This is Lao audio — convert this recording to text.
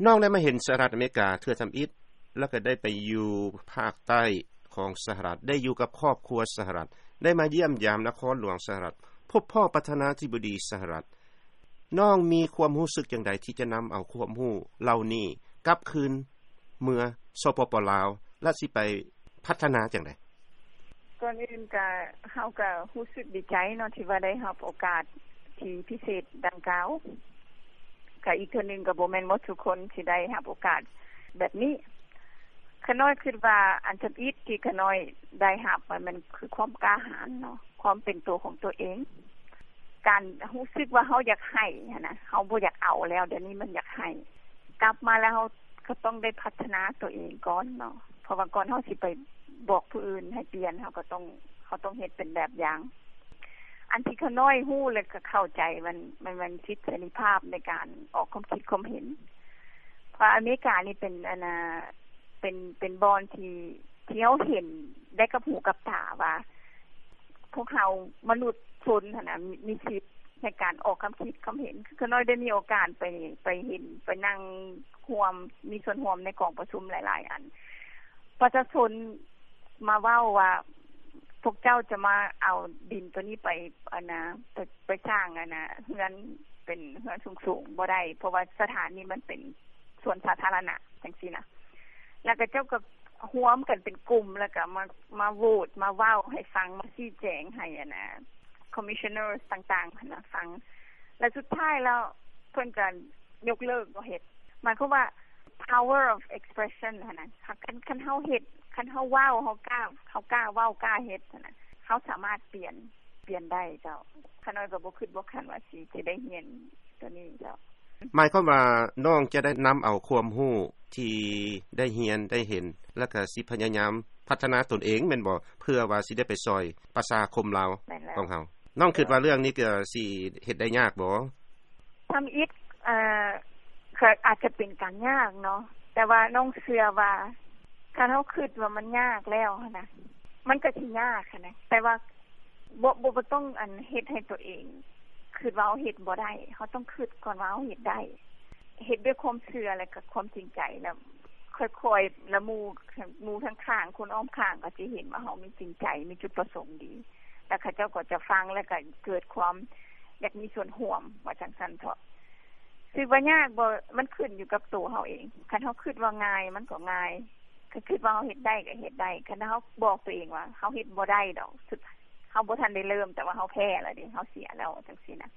ນ້ອງໄດ້ມາເຫັນສະຫະລັດອາເມລິກາເທື່ອທຳອິດ ແລ້ວກໍໄດ້ໄປຢູ່ພາກໃຕ້ຂອງສະຫະລັດ, ໄດ້ຢູ່ກັບຄອບຄົວສະຫະລັດ, ໄດ້ມາຢ້ຽມຢາມນະຄອນຫຼວງສະຫະລັດ, ພົບພໍ້ປະທານາທິບໍດີສະຫະລັດ. ນ້ອງມີຄວາມຮູ້ສຶກຈັ່ງໃດທີ່ຈະນຳເອົາຄວາມຮູ້ເຫຼົ່ານີ້ກັບຄືນເມືອ ສປປ ລາວ ແລະ ຊິໄປພັດທະນາຈັ່ງໃດ? ກ່ອນອື່ນກະ ເຮົາກະຮູ້ສຶກດີໃຈເນາະ ທີ່ວ່າໄດ້ຮັບໂອກາດທີ່ພິເສດດັ່ງກ່າວ. ກະອີກເທື່ອໜຶ່ງ ກະບໍ່ແມ່ນໝົດທຸກຄົນທີ່ໄດ້ຮັບໂອກາດແບບນີ້. ຂ້ານ້ອຍຄິດວ່າອັນທຳອິດທີ່ຂ້ານ້ອຍໄດ້ຮັບ ມັນ ມັນຄືຄວາມກ້າຫານເນາະ, ຄວາມເປັນໂຕຂອງຕົວເອງ, ການຮູ້ສຶກວ່າເຮົາຢາກໃຫ້ຫັ້ນນະ, ເຮົາບໍ່ຢາກເອົາແລ້ວ, ດຽວນີ້ມັນຢາກໃຫ້. ກັບມາແລ້ວເຮົາກໍຕ້ອງໄດ້ພັດທະນາຕົວເອງກ່ອນເນາະ, ເພາະວ່າກ່ອນເຮົາຊິໄປບອກຜູ້ອື່ນໃຫ້ປ່ຽນ, ເຮົາກໍຕ້ອງ ເຮົາຕ້ອງເຮັດເປັນແບບຢ່າງ. ອັນທີ່ຂ້ານ້ອຍຮູ້ ແລະ ກໍເຂົ້າໃຈ ມັນ ມັນ ມັນສິດເສລີພາບໃນການອອກຄວາມຄິດຄວາມເຫັນ. ເພາະອາເມລິການີ້ເປັນ ອັນນ່າ ເປັນ ເປັນບ່ອນທີ່ ທີ່ເຮົາເຫັນໄດ້ກັບຫູກັບຕາວ່າ ພວກເຮົາມະນຸດຊົນຫັ້ນນະ ມີ ມີສິດໃນການອອກຄຳຄິດຄຳເຫັນ. ຄືຂ້ານ້ອຍໄດ້ມີໂອກາດໄປ ໄປເຫັນ ໄປນັ່ງຮ່ວມ ມີສ່ວນຮ່ວມໃນກອງປະຊຸມຫຼາຍໆອັນ. ປະຊາຊົນມາເວົ້າວ່າ ພວກເຈົ້າຈະມາເອົາດິນໂຕນີ້ໄປ ອັນນ່າ ໄປ ໄປສ້າງ ອັນນ່າ ເຮືອນ ເປັນເຮືອນສູງໆບໍ່ໄດ້ ເພາະວ່າສະຖານນີ້ມັນເປັນສວນສາທາລະນະ ຈັ່ງຊີ້ນະ. ແລ້ວກໍເຈົ້າກໍຮວມກັນເປັນກຸ່ມ ແລ້ວກໍມາ ມາໂຫວດ ມາເວົ້າໃຫ້ຟັງ ມາຊີ້ແຈງໃຫ້ ອັນນ່າ commissioners ຕ່າງໆຫັ້ນນະຟັງ. ແລ້ວສຸດທ້າຍແລ້ວເພິ່ນກໍຍົກເລີກບໍ່ເຮັດ. ໝາຍຄວາມວ່າ power of expression ຫັ້ນນະ. ຄັນ ຄັນເຮົາເຮັດ ຄັນເຮົາເວົ້າ ເຮົາກ້າ ເຮົາກ້າເວົ້າ ກ້າເຮັດຫັ້ນນະ, ເຮົາສາມາດປ່ຽນ ປ່ຽນໄດ້ເຈົ້າ. ຂ້ານ້ອຍກໍບໍ່ຄິດບໍ່ຝັນວ່າຊິ ຊິໄດ້ຮຽນໂຕນີ້ເຈົ້າ. ໝາຍຄວາມວ່ານ້ອງຈະໄດ້ນຳເອົາຄວາມຮູ້ທີ່ໄດ້ຮຽນໄດ້ເຫັນ ແລ້ວກໍຊິພະຍາຍາມພັດທະນາຕົນເອງແມ່ນບໍ່? ເພື່ອວ່າຊິໄດ້ໄປຊ່ອຍປະຊາຄົມລາວ ແມ່ນແລ້ວ ຂອງເຮົາ. ນ້ອງຄິດວ່າເລື່ອງນີ້ກໍຊິເຮັດໄດ້ຍາກບໍ່? ທຳອິດ ເອີ ກໍອາດຈະເປັນການຍາກເນາະ, ແຕ່ວ່ານ້ອງເຊື່ອວ່າ ຄັນເຮົາຄິດວ່າມັນຍາກແລ້ວຫັ້ນນະ ມັນກໍຊິຍາກຫັ້ນນະ, ແຕ່ວ່າບໍ່ ບໍ່ ບໍ່ຕ້ອງ ອັນ ເຮັດໃຫ້ຕົວເອງຄິດວ່າເຮົາເຮັດບໍ່ໄດ້. ເຮົາຕ້ອງຄິດກ່ອນວ່າເຮົາເຮັດໄດ້, ເຮັດດ້ວຍຄວາມເຊື່ອ ແລະ ກໍຄວາມຈິງໃຈ, ແລ້ວຄ່ອຍໆ ແລ້ວໝູ່ ໝູ່ທາງຂ້າງ ຄົນອ້ອມຂ້າງກໍຈະເຫັນວ່າເຮົາມີຈິງໃຈ ມີຈຸດປະສົງດີ, ແລ້ວເຂົາເຈົ້າກໍຈະຟັງ ແລ້ວກໍເກີດຄວາມຢາກມີສ່ວນຮ່ວມ ວ່າຈັ່ງຊັ້ນເຖາະ. ຄິດວ່າຍາກບໍ່? ມັນຂຶ້ນຢູ່ກັບໂຕເຮົາເອງ. ຄັນເຮົາຄິດວ່າງ່າຍ ມັນກໍງ່າຍ, ຄັນຄິດວ່າເຮົາເຮັດໄດ້ກໍເຮັດໄດ້. ຄັນເຮົາບອກຕົວເອງວ່າ ເຮົາເຮັດບໍ່ໄດ້ດອກ, ເຮົາບໍ່ທັນໄດ້ເລີ່ມ ແຕ່ວ່າເຮົາແພ້ແລ້ວເດ້, ເຮົາເສຍແລ້ວ ຈັ່ງຊີ້ນະ.